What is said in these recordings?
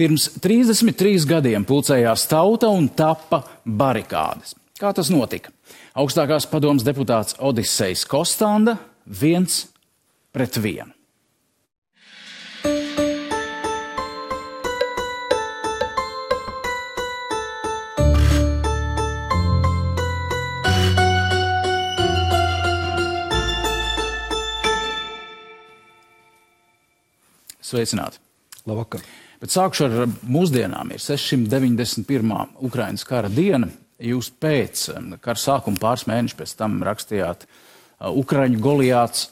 Pirms 33 gadiem pulcējās tauta un tappa barikādes. Kā tas notika? Augstākās padomes deputāts Odisejs Kostanda 1-1. Sveicināti. Labvakar. Bet sākšu ar mūsdienām. Ir 691. Ukrainas kara diena. Jūs pēc kara sākuma pāris mēnešus pēc tam rakstījāt Ukraiņu Goliāts.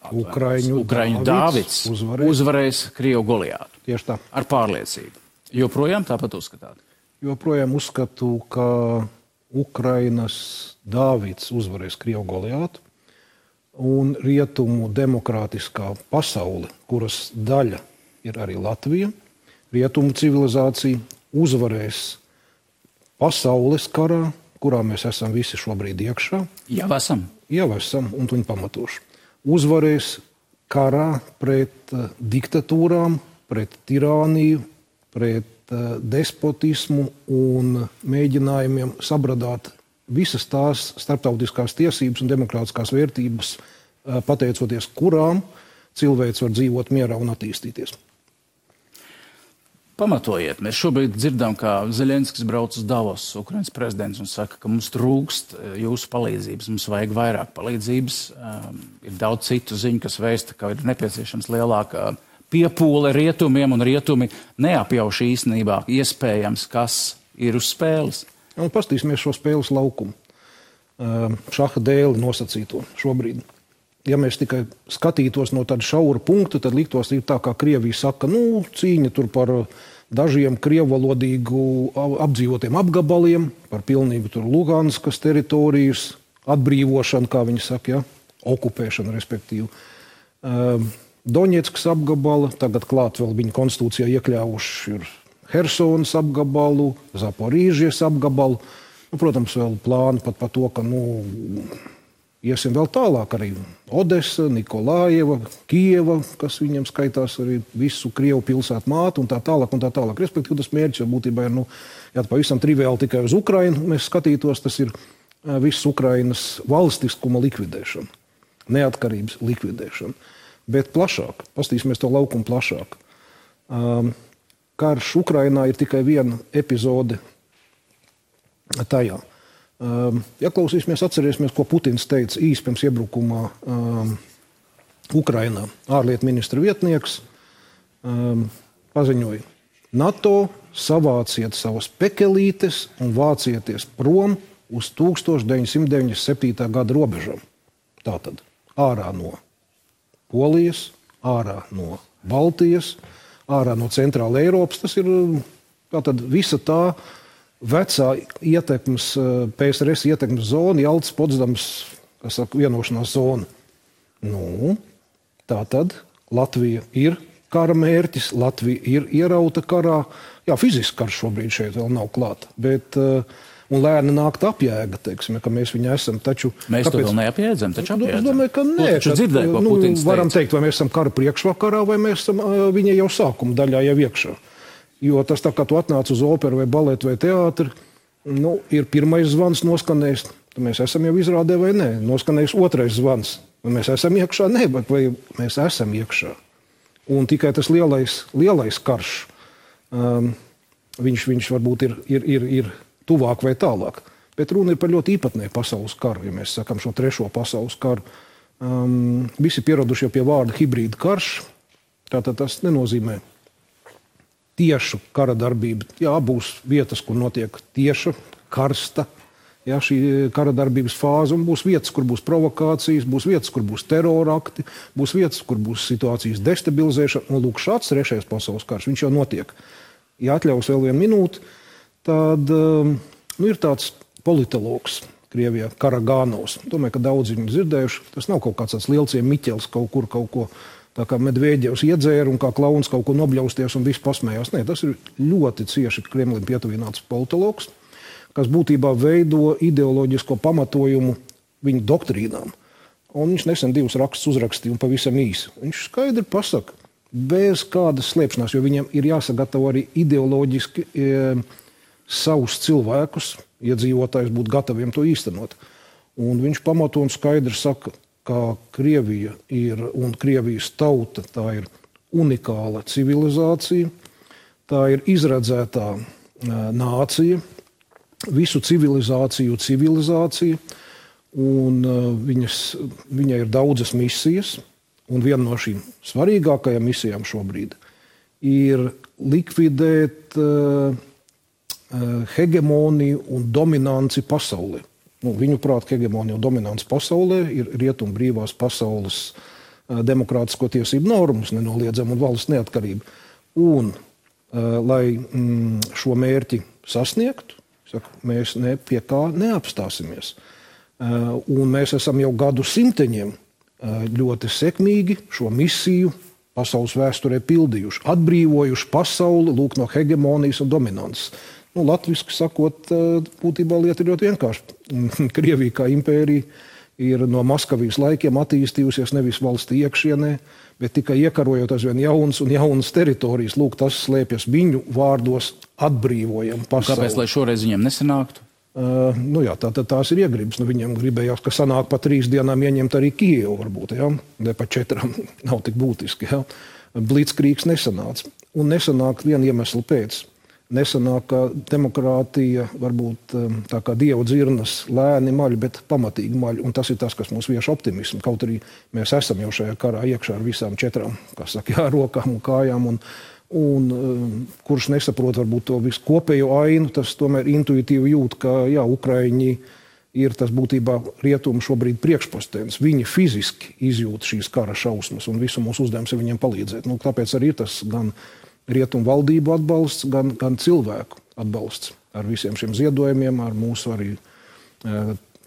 Ukraiņu Dāvids uzvarēs Krievu Goliātu. Tieši tā. Ar pārliecību. Joprojām tāpat uzskatāt? Joprojām uzskatu, ka Ukrainas Dāvids uzvarēs Krievu Goliātu. Un rietumu demokrātiskā pasaule, kuras daļa ir arī Latvija, rietumu civilizācija uzvarēs pasaules karā, kurā mēs esam visi šobrīd iekšā. Jau esam. Jau esam, un tuņi pamatoši. Uzvarēs karā pret diktatūrām, pret tirāniju, pret despotismu un mēģinājumiem sabradāt visas tās starptautiskās tiesības un demokrātiskās vērtības, pateicoties kurām cilvēks var dzīvot mierā un attīstīties. Pamatojiet, mēs šobrīd dzirdam, ka Zeļenskis brauc uz Davos, Ukrainas prezidents, un saka, ka mums trūkst jūsu palīdzības, mums vajag vairāk palīdzības. Ir daudz citu ziņu, kas vēsta, ka ir nepieciešams lielāka piepūle rietumiem, un rietumi neapjauš īstenībā iespējams, kas ir uz spēles. Un pastīsimies šo spēles laukumu. Šaha dēli nosacīto šobrīd. Ja mēs tikai skatītos no tāda šaura punkta, tad liktos ir tā, kā Krievija saka, cīņa tur par dažiem krievvalodīgu apdzīvotiem apgabaliem, par pilnīgu tur Luganskas teritorijas atbrīvošanu, kā viņi saka, okupēšanu, respektīvi. Doņetskas apgabala, tagad klāt vēl viņa konstitūcijā iekļāvuši ir Hersonas apgabalu, Zaporīžies apgabalu. Protams, vēl plāni pat par to, ka iesim vēl tālāk arī Odesa, Nikolājeva, Kieva, kas viņam skaitās arī visu Krievu pilsētu mātu un tā tālāk un tā tālāk. Respektīvi, tas mērķis jau būtībā ir, ja pavisam triviāli tikai uz Ukrainu mēs skatītos, tas ir viss Ukrainas valstiskuma likvidēšana, neatkarības likvidēšana. Bet plašāk, pastīsimies to laukumu plašāk. Karš Ukrainā ir tikai viena epizode tajā. Ja klausīsimies, atcerēsimies, ko Putins teica īsi pirms iebrukumā Ukrainā. Ārlietu ministra vietnieks paziņoja: NATO savāciet savas pekelītes un vācieties prom uz 1997. gada robežām. Tātad ārā no Polijas, ārā no Baltijas, ārā no Centrāla Eiropas. Tas ir tātad visa tā vecā ietekmes, PSRS ietekmes zona, Jaltas, Potsdamas, kas saka, vienošanās zona. Tātad Latvija ir kara mērķis, Latvija ir ierauta karā. Jā, fiziski karš šobrīd šeit vēl nav klāta, bet un lēni nākt apjēga, teiksim, ka mēs viņu esam. Taču, mēs to vēl neapjēdzam, taču apjēdzam. Es domāju, ka nē. Dzirdēju, ko Putins teica. Varam teikt, vai mēs esam kara priekšvakarā, vai mēs esam viņa jau sākuma daļā jau iekšā. Jo tas tā, kā tu atnāc uz operu vai baletu vai teātri, ir pirmais zvans noskanējis, tad mēs esam jau izrādē vai nē. Noskanējis otrais zvans, vai mēs esam iekšā, nē, bet vai mēs esam iekšā. Un tikai tas lielais karš, viņš varbūt ir tuvāk vai tālāk. Bet runa ir par ļoti īpatnēju pasaules karu, ja mēs sakam šo trešo pasaules karu. Visi pieraduši jau pie vārda hibrīda karš, tātad tas nenozīmē tiešu kara darbību. Jā, būs vietas, kur notiek tieša, karsta, šī kara darbības fāze, un būs vietas, kur būs provokācijas, būs vietas, kur būs terorakti, būs vietas, kur būs situācijas destabilizēšana. Un lūk, šāds trešais pasaules karš, viņš jau notiek. Ja atļaus vēl vienu minūti, tad ir tāds politologs Krievijā, Karagānovs. Domāju, ka daudz viņu dzirdējuši. Tas nav kaut kāds tāds lielciem Miķels kaut ko tā kā Medvēģevs iedzēra un kā klauns kaut ko nobļausties un viss pasmējās. Nē, tas ir ļoti cieši Kremlim pietuvināts politologs, kas būtībā veido ideoloģisko pamatojumu viņu doktrīnām. Un viņš nesen 2 rakstus uzrakstīja un pavisam īsi. Viņš skaidri pasaka, bez kādas slēpšanās, jo viņiem ir jāsagatavo arī ideoloģiski savus cilvēkus, iedzīvotājus būt gataviem to īstenot. Un viņš pamato un skaidri saka, ka Krievija ir un Krievijas tauta, tā ir unikāla civilizācija, tā ir izredzētā nācija, visu civilizācija, un viņai ir daudzas misijas, un viena no šīm svarīgākajām misijām šobrīd ir likvidēt hegemoniju un dominanci pasaulē. Viņuprāt, hegemonija un dominants pasaulē ir rietumu brīvās pasaules demokrātisko tiesību normas, nenoliedzama un valsts neatkarība. Un, lai šo mērķi sasniegtu, mēs pie kā neapstāsimies. Un mēs esam jau gadu simteņiem ļoti sekmīgi šo misiju pasaules vēsturē pildījuši, atbrīvojuši pasauli lūk no hegemonijas un dominances. Latviski sakot, būtībā lieta ir ļoti vienkārši. Krievija kā impērija ir no Maskavijas laikiem attīstījusies nevis valsts iekšienē, bet tikai iekarojot aizvien jaunas teritorijas. Lūk, tas slēpjas viņu vārdos atbrīvojam pasauli. Kāpēc, lai šoreiz viņiem nesanāktu? Tās ir iegribas. Viņiem gribējās, ka sanāk pa 3 dienām ieņemt arī Kijevu varbūt, ne pa 4 nav tik būtiski. Blitzkrīgs nesanāca. Un nesanāk viena iemesla pēc. Nesanāk, ka demokrātija varbūt tā kā dievu dzirnas lēni maļ, bet pamatīgi maļ. Un tas ir tas, kas mūs vieš optimismu. Kaut arī mēs esam jau šajā karā iekšā ar visām 4, rokām un kājām. Un kurš nesaprot varbūt to visu kopējo ainu, tas tomēr intuitīvi jūt, ka Ukraiņi ir tas būtībā rietumu šobrīd priekšpostens. Viņi fiziski izjūt šīs kara šausmas un visu mūsu uzdevums ir viņiem palīdzēt. Tāpēc arī ir tas gan rietumu valdību atbalsts, gan cilvēku atbalsts ar visiem šiem ziedojumiem, ar mūsu arī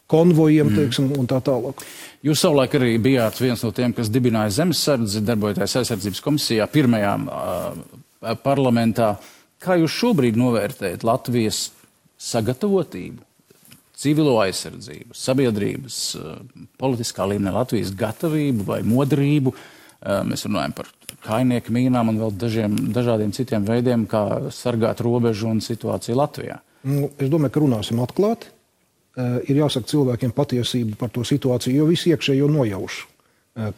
konvojiem, teiksim, un tā tālāk. Jūs savulaik arī bijāt viens no tiem, kas dibināja Zemesardzi, darbojoties aizsardzības komisijā, pirmajā parlamentā. Kā jūs šobrīd novērtējat Latvijas sagatavotību, civilo aizsardzību, sabiedrības, politiskā līmenī Latvijas gatavību vai modrību? Mēs runājam par kainieku mīnām un vēl dažādiem citiem veidiem, kā sargāt robežu un situāciju Latvijā. Es domāju, ka runāsim atklāti. Ir jāsaka cilvēkiem patiesība par to situāciju, jo visi iekšējo nojauš,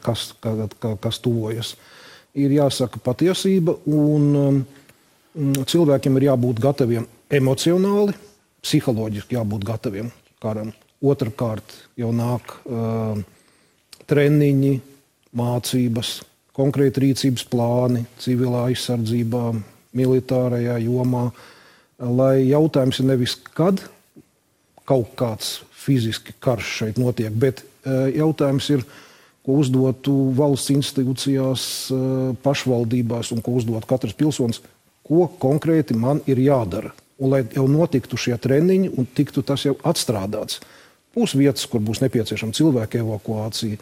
kas tuvojas. Ir jāsaka patiesība, un cilvēkiem ir jābūt gataviem emocionāli, psiholoģiski jābūt gataviem karam. Otrakārt jau nāk treniņi, mācības, konkrēti rīcības plāni, civilā aizsardzībā, militārajā jomā, lai jautājums ir nevis kad kaut kāds fiziski karš šeit notiek, bet jautājums ir, ko uzdotu valsts institūcijās, pašvaldībās un ko uzdot katrs pilsonis, ko konkrēti man ir jādara. Un lai jau notiktu šie treniņi un tiktu tas jau atstrādāts. Būs vietas, kur būs nepieciešama cilvēka evakuācija.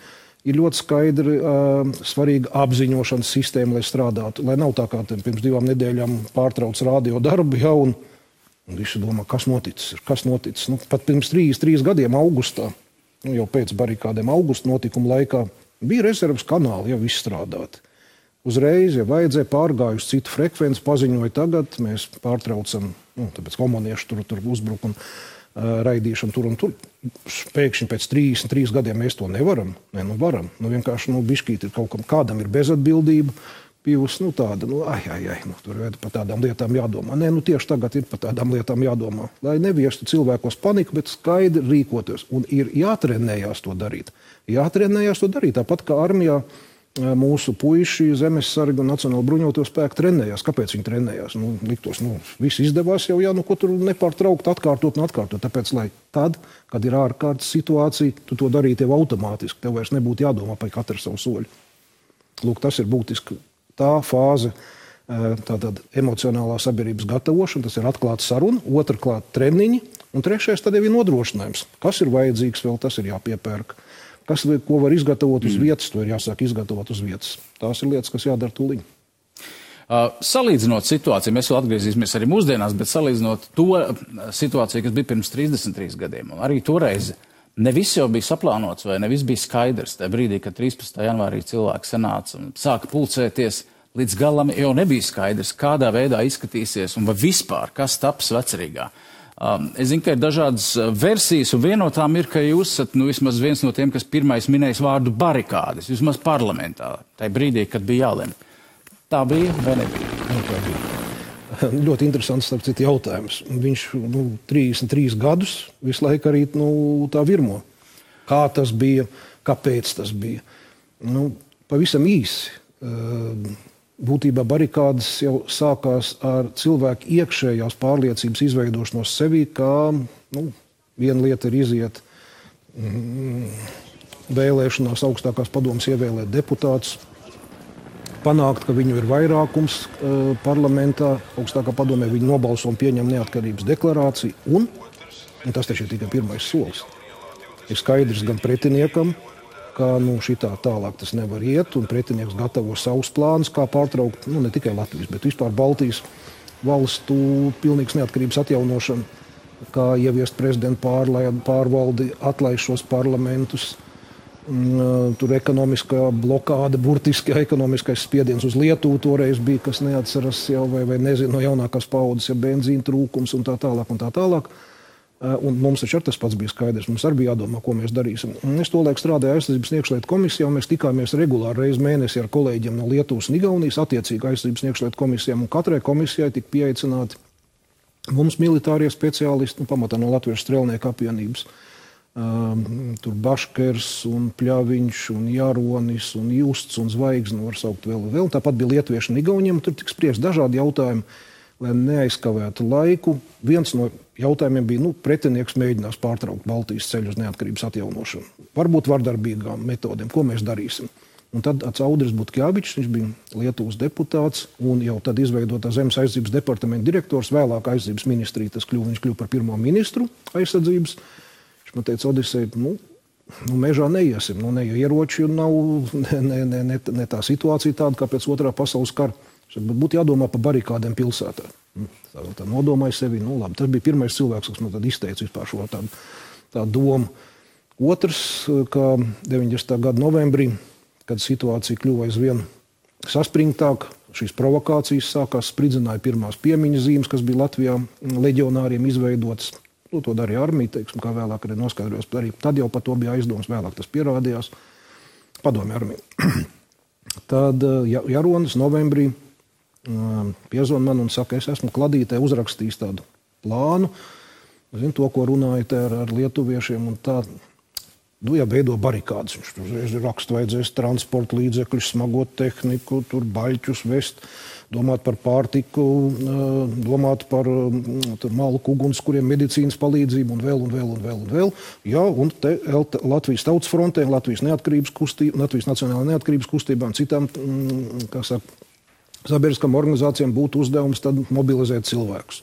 Ir ļoti skaidri svarīga apziņošanas sistēma, lai strādātu. Lai nav tā kā pirms 2 nedēļām pārtrauc radio darbu, un visi domā, kas noticis. Pat pirms 3 gadiem augustā, jau pēc barikādēm augusta notikuma laikā, bija rezerves kanāli jau izstrādāti. Uzreiz, ja vajadzēja, pārgājusi citu frekvenci, paziņoja tagad, mēs pārtraucam, tāpēc komunieši tur uzbruk un raidīšanu tur un tur. Pēkšņi pēc 33 gadiem mēs to nevaram. Varam. Vienkārši bišķīt ir kaut kam, kādam ir bezatbildība. Bijusi tāda, tur ir par tādām lietām jādomā. Tieši tagad ir par tādām lietām jādomā. Lai neviestu cilvēkos paniku, bet skaidri rīkoties. Un ir jātrenējās to darīt. Tāpat kā armijā mūsu puiši, zemesargi un Nacionāla bruņoto spēku trenējās. Kāpēc viņi trenējās? Liktos, viss izdevās jau, ko tur nepārtraukt atkārtot. Tāpēc, lai tad, kad ir ārkārtas situācija, tu to darītu jau automātiski. Tev vairs nebūtu jādomā par katru savu soļu. Lūk, tas ir būtiski. Tā fāze, tātad emocionālā sabiedrības gatavošana, tas ir atklāta saruna, otrkārt treniņi, un trešais tad jau ir nodrošinājums. Kas ir vajadzīgs vēl, tas ir jāpiepērk. Ko var izgatavot uz vietas, to ir jāsāk izgatavot uz vietas. Tās ir lietas, kas jādara tūliņ. Salīdzinot situāciju, mēs vēl atgriezīsimies arī mūsdienās, bet salīdzinot to situāciju, kas bija pirms 33 gadiem, un arī toreiz ne viss jau bija saplānots vai ne viss bija skaidrs. Tajā brīdī, kad 13. janvārī cilvēki sanāca un sāka pulcēties, līdz galam jau nebija skaidrs, kādā veidā izskatīsies un vai vispār, kas taps Vecerīgā. Es zinu, ka ir dažādas versijas, un viena no tām ir, ka jūs esat vismaz viens no tiem, kas pirmais minējis vārdu barikādes, vismaz parlamentā, tajā brīdī, kad bija jālem. Tā bija vai nebija? Tā bija. Ļoti interesants, starp citu, jautājums. Viņš 33 gadus visu laiku arī tā virmo. Kā tas bija, kāpēc tas bija. Pavisam īsi. Būtībā barikādes jau sākās ar cilvēku iekšējās pārliecības izveidošanos sevī, kā viena lieta ir iziet vēlēšanās augstākās padomes ievēlēt deputātus, panākt, ka viņu ir vairākums parlamentā, augstākā padomē viņi nobalso un pieņem neatkarības deklarāciju, un tas taču ir tikai pirmais solis. Ir skaidrs gan pretiniekam, ka šitā tālāk tas nevar iet, un pretinieks gatavo savus plānus, kā pārtraukt, ne tikai Latvijas, bet vispār Baltijas valstu pilnīgas neatkarības atjaunošanu, kā ieviest prezidentu pārvaldi, atlaist šos parlamentus, tur ekonomiskā blokāde, burtiski ekonomiskais spiediens uz Lietuvu toreiz bija, kas neatceras jau, vai nezinu, no jaunākās paudzes, ja benzīna trūkums un tā tālāk. Un mums taču tas pats bija skaidrs. Mums arī bija jādomā, ko mēs darīsim. Es tolaik strādāju aizsardzības un iekšlietu komisijā, un mēs tikāmies regulāri reizi mēnesī ar kolēģiem no Lietuvas un Igaunijas, attiecīgi aizsardzības un iekšlietu komisijām, un katrai komisijai tika pieaicināti mums militārie speciālisti, pamatā no Latviešu strelnieku apvienības. Tur Baškers un Pļaviņš un Jaronis un Justs un Zvaigzne var saukt vēl. Tāpat bija lietuvieši un igauniem, tur tika spriest dažādi jautājumi, lai neaizkavētu laiku. Viens no jautājumiem bija, pretinieks mēģinās pārtraukt Baltijas ceļu uz neatkarības atjaunošanu. Varbūt vardarbīgām metodēm, ko mēs darīsim. Un tad Audris Butkevičs, viņš bija Lietuvas deputāts un jau tad izveidotā Zemes aizsardzības departamenta direktors, vēlāk aizsardzības ministrija, viņš kļuva par pirmo ministru aizsardzības. Viņš man teica, Odisei, mežā neiesim, ne ieroči nav, ne tā situācija tāda, kā pēc otrā pasaules kara. Būtu jādomā par barikādēm pilsētā. Tā nodomāja sevi. Labi, tas bija pirmais cilvēks, kas man tad izteica vispār šo tādu domu. Otrs, kā 90. gada novembrī, kad situācija kļuva aizvien saspringtāk, šīs provokācijas sākās, spridzināja pirmās piemiņas zīmes, kas bija Latvijā leģionāriem izveidotas. To darīja armija, teiksim, kā vēlāk arī noskaidrojos. Tad jau par to bija aizdoms, vēlāk tas pierādījās. Padomju armija. Tad Jaronis novembrī piezvan man un saka, es esmu kladītē uzrakstījis tādu plānu, zinu to, ko runājat ar lietuviešiem, un tā, veido barikādes. Viņš tur raksta, vajadzēs transporta līdzekļus, smagot tehniku, tur baļķus vest, domāt par pārtiku, domāt par malku ugunskuriem, medicīnas palīdzību un vēl. Jā, un te Latvijas tautas frontē, Latvijas Nacionālajā neatkarības kustībā un citām, sabiedriskām organizācijām būtu uzdevums tad mobilizēt cilvēkus.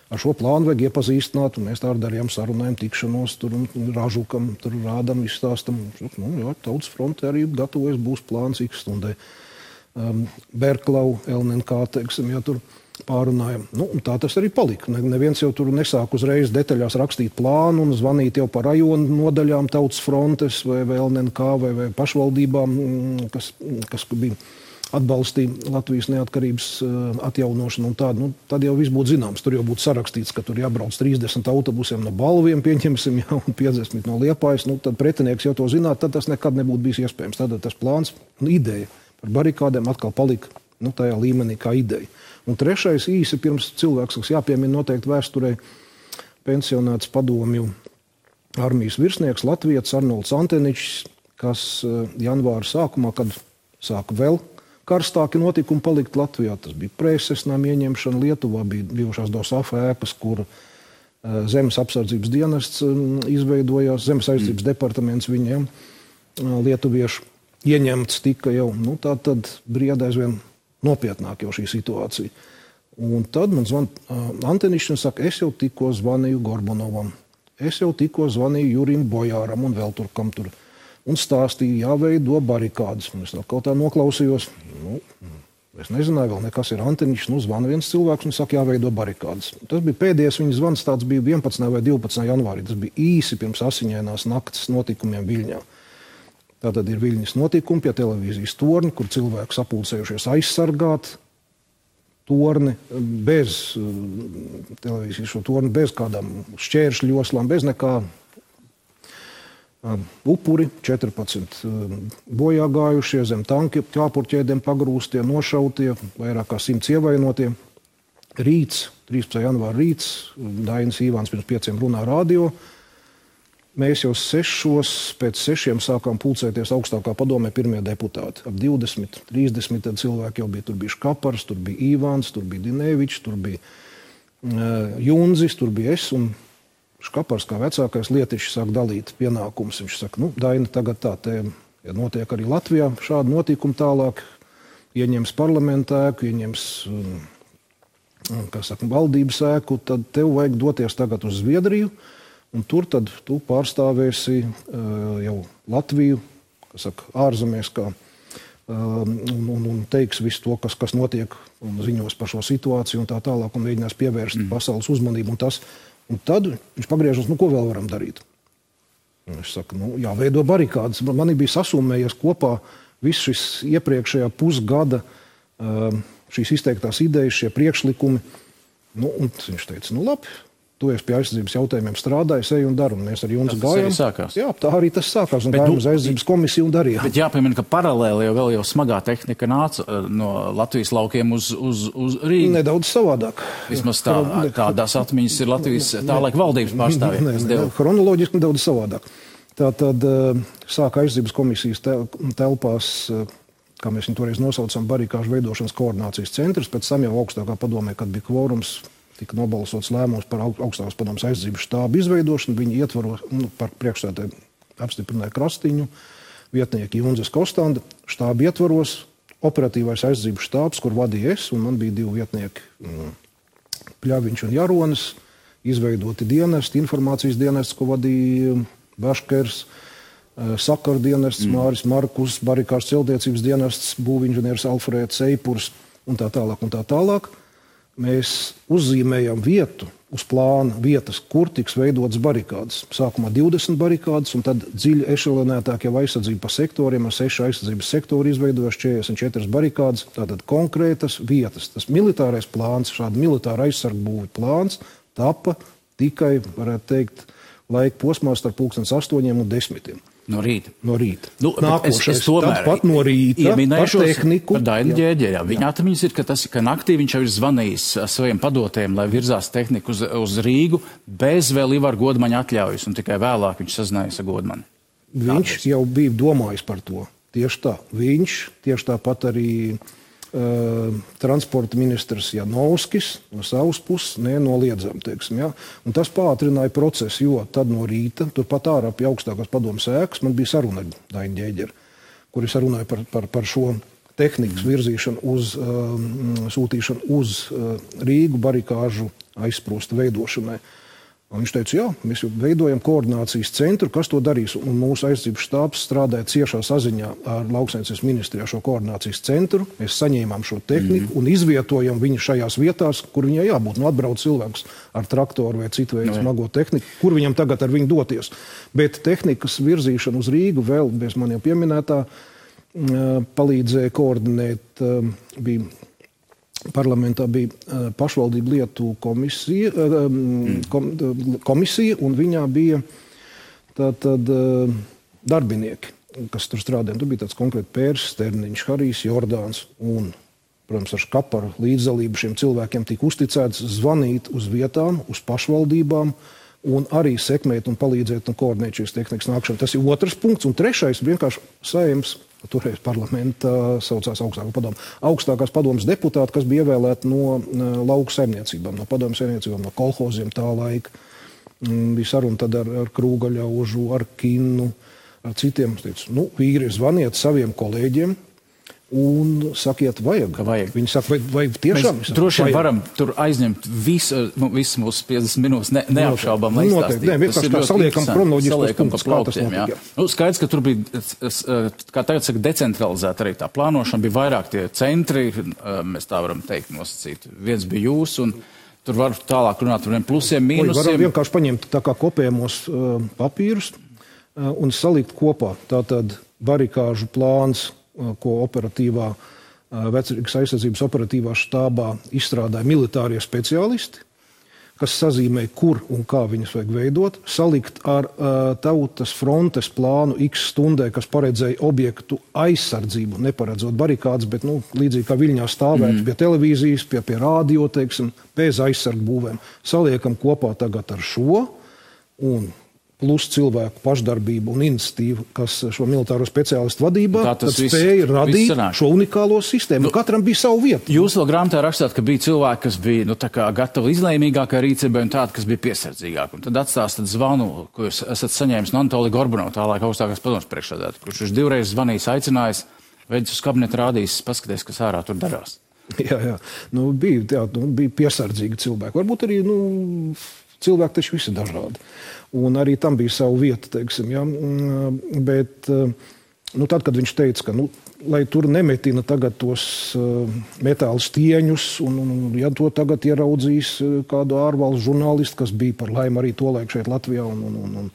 Ar šo plānu vajag iepazīstināt, un mēs tā darījām sarunājumu, tikšanos, tur ražukam, tur rādam, izstāstam. Tautas fronte arī gatavojas, būs plāns X stundai. Berklau, LNK, teiksim, tur pārunājam. Tā tas arī palika. Neviens jau tur nesāk uzreiz detaļās rakstīt plānu un zvanīt jau par rajonu nodaļām Tautas frontes vai LNK vai pašvaldībām, kas bija atbalstīja Latvijas neatkarības atjaunošanu un tādu. Tad jau viss būtu zināms. Tur jau būtu sarakstīts, ka tur jābrauc 30 autobusiem no Balviem, pieņemsim, un 50 no Liepājas. Tad pretinieks jau to zinātu, tad tas nekad nebūtu bijis iespējams. Tad tas plāns un ideja par barikādēm atkal palika tajā līmenī kā ideja. Un trešais īsi pirms cilvēks, kas jāpiemina noteikti vēsturē, pensionēts padomju armijas virsnieks Latvietis Arnolds Anteničs, kas janvāra sākumā, kad sāka vēl karstāki notikumi palikt Latvijā. Tas bija preses nama ieņemšana. Lietuvā bija bijušās DOSAF ēkas, kur Zemes apsardzības dienests izveidojās, Zemes aizsardzības departaments viņiem lietuviešu ieņemts tika jau. Tad brieda aizvien nopietnāk jau šī situācija. Un tad man zvana Antenišs un saka, es jau tikko zvanīju Gorbunovam, es jau tikko zvanīju Jurim Bojāram un vēl tur, kam tur. Un stāstīja, jāveido barikādes. Es kaut tā noklausījos. Es nezināju vēl nekas ir Antenišs. Zvana viens cilvēks un saka, jāveido barikādes. Tas bija pēdējais viņa zvans, tāds bija 11. vai 12. janvārī. Tas bija īsi pirms asiņainās naktas notikumiem Viļņā. Tātad ir Viļņas notikumi pie televīzijas torņa, kur cilvēki sapulcējušies aizsargāt torni bez televīzijas šo torni, bez kādām šķēršļoslām, bez nekā. Upuri, 14 bojā gājušie, zem tanki, ķāpurķēdiem pagrūstie, nošautie, vairāk kā 100 ievainotie. Rīts, 13. janvāra rīts, Dainis Īvāns pirms 5 runā radio. Mēs jau pēc 6 sākām pulcēties augstākā padomē pirmie deputāti. Ap 20, 30 tad cilvēki jau bija. Tur bija Škapars, tur bija Īvāns, tur bija Dinevičs, tur bija Junzis, tur bija es. Un Škapars kā vecākais lietišs sāk dalīt pienākumus. Viņš saka, Daini, tagad tā te ja notiek arī Latvijā šādi notikumi tālāk. Ieņems parlamenta ēku, ieņems valdības ēku, tad tev vajag doties tagad uz Zviedriju. Un tur tad tu pārstāvēsi jau Latviju, ārzemēs, un teiks visu to, kas notiek, un ziņos par šo situāciju un tā tālāk, un mēģinās pievērst pasaules uzmanību. Un tad viņš pagriežas, ko vēl varam darīt? Un viņš saka, jāveido barikādes. Man bija sasumējies kopā viss šis iepriekšējā pusgada šīs izteiktās idejas, šie priekšlikumi. Un viņš teica, labi. Tu esi pie aizsardzības jautājumiem strādājis, ej un dari, un mēs ar Junzu gājām. Jā, tā arī tas sākās, un gājām uz aizsardzības komisiju un darījām. Bet jāpiemina, ka paralēli jau smagā tehnika nāca no Latvijas laukiem uz Rīgu. Nedaudz savādāk. Vismaz tādās atmiņas ir Latvijas tālaik valdības pārstāvjiem. Chronoloģiski nedaudz savādāk. Tātad sāka aizsardzības komisijas telpās, kā mēs viņu toreiz nosaucam, barikāžu veidošanas koordinācijas centrs, pēc tam jau augstākā padomē, kad bija kvorums, tika nobalsots lēmums par augstākās padomes aizsardzības štābu izveidošanu. Viņi ietvaros par priekšsēdētāju apstiprināja Krastiņu, vietnieki Junzes Kostanda, štābu ietvaros, operatīvais aizsardzības štābs, kur vadīja es, un man bija 2 vietnieki, Pļaviņš un Jaronis, izveidoti dienesti, informācijas dienests, ko vadīja Baškers, sakaru dienests, Māris Markus, barikāžu celtniecības dienests, būvinženieris Alfrēds Eipurs un tā tālāk un tā tālāk. Mēs uzzīmējam vietu, uz plāna vietas, kur tiks veidotas barikādes. Sākumā 20 barikādes, un tad dziļi ešelonētāk jau aizsardzība pa sektoriem, ar 6 aizsardzības sektori izveidojuši 44 barikādes, tātad konkrētas vietas. Tas militārais plāns, šāda militāra aizsargbūvi plāns, tapa tikai, varētu teikt, laika posmā starp 8 un 10. No rīta. Nākošais, tāpat no rīta, par tehniku. Par Dainu Ģēģeri. Viņa atmiņas ir, ka naktī viņš jau ir zvanījis saviem padotējiem, lai virzās tehniku uz Rīgu, bez vēl Ivar Godmaņa atļaujas, un tikai vēlāk viņš sazinājās ar Godmani. Viņš jau bija domājis par to. Tieši tā. Viņš, tieši tāpat arī transporta ministrs Janovskis no savas puses nenoliedzam, teiksim, ja. Un tas pātrināja procesu, jo tad no rīta, turpat ārā pie augstākās padomes ēkas, man bija saruna ar Dainu Ģēģeri, kur es runāju par šo tehnikas virzīšanu sūtīšanu uz Rīgu barikāžu aizsprosta veidošanai. Un viņš teica, jā, mēs jau veidojam koordinācijas centru, kas to darīs. Un mūsu aizsardzības štābs strādāja ciešā saziņā ar lauksaimniecības ministrijā šo koordinācijas centru. Mēs saņēmām šo tehniku un izvietojam viņu šajās vietās, kur viņai jābūt. Atbrauc cilvēks ar traktoru vai citu veidu smago tehniku, kur viņam tagad ar viņu doties. Bet tehnikas virzīšanu uz Rīgu vēl, bez man jau pieminētā, palīdzēja koordinēt, parlamentā bija pašvaldību lietu komisija, un viņā bija tātad darbinieki, kas tur strādāja. Tur bija tāds konkrēti Pērs, Sterniņš, Harijs, Jordāns un, protams, ar Škaparu līdzdalību šiem cilvēkiem tika uzticēts zvanīt uz vietām, uz pašvaldībām un arī sekmēt un palīdzēt un koordinēt šīs tehnikas nākšanu. Tas ir otrs punkts. Un trešais vienkārši Saeimas, toreiz parlamentā saucās augstākās padomes deputāti, kas bija ievēlēti no lauku saimniecībām, no padomes saimniecībām, no kolhoziem tā laika. Bija saruna tad ar Krūgaļaužu, ar Kinnu, ar citiem. Es teicu, vīri, zvaniet saviem kolēģiem un sakiet, vajag. Viņi saka, vai tiešām? Mēs droši vien varam tur aizņemt visu mūsu 50 minūtes, neapšaubām, lai izstāstītu. Nē, vienkārši kā saliekam kronoloģiskos punktus, kā tas notika. Skaidrs, ka tur bija, kā tagad saka, decentralizēta arī tā plānošana, bija vairāk tie centri, mēs tā varam teikt nosacīt. Viens bija jūs, un tur var tālāk runāt par plusiem, mīnusiem. Varam vienkārši paņemt tā kā kopējamos papīrus un salikt kopā. Tātad barikāžu plāns, ko operatīvā, Vecrīgas aizsardzības operatīvā štābā izstrādāja militārie speciālisti, kas sazīmē, kur un kā viņas vajag veidot, salikt ar tautas frontes plānu X stundē, kas paredzēja objektu aizsardzību, neparedzot barikādes, bet līdzīgi kā Viļņā stāvēt pie televīzijas, pie rādio, teiksim, bez aizsargu būvēm. Saliekam kopā tagad ar šo un plus cilvēku pašdarbību un iniciatīvu, kas šo militāro speciālistu vadībā spēja radīt šo unikālo sistēmu. Katram bija savu vietu. Jūs vēl grāmatā rakstāt, ka bija cilvēki, kas bija gatavi izlēmīgākai rīcībai un tādi, kas bija piesardzīgāki. Un tad atstāstat zvanu, ko jūs esat saņēmis no Anatolija Gorbanova, tālāk augstākās padomes priekšsēdētāja, kurš viņš 2 reizes zvanījis, aicinājis, veidus uz kabinetu rādījis, paskaties, kas ārā tur darās. Jā. Bija piesardzīgi cilvēki. Varbūt arī, cilvēki taču visi dažādi. Un arī tam bija savu vietu, teiksim, ja? Bet tad, kad viņš teica, ka, lai tur nemetina tagad tos metāla stieņus, un ja to tagad ieraudzīs kādu ārvalstu žurnālistu, kas bija par laimi arī tolaik šeit Latvijā, un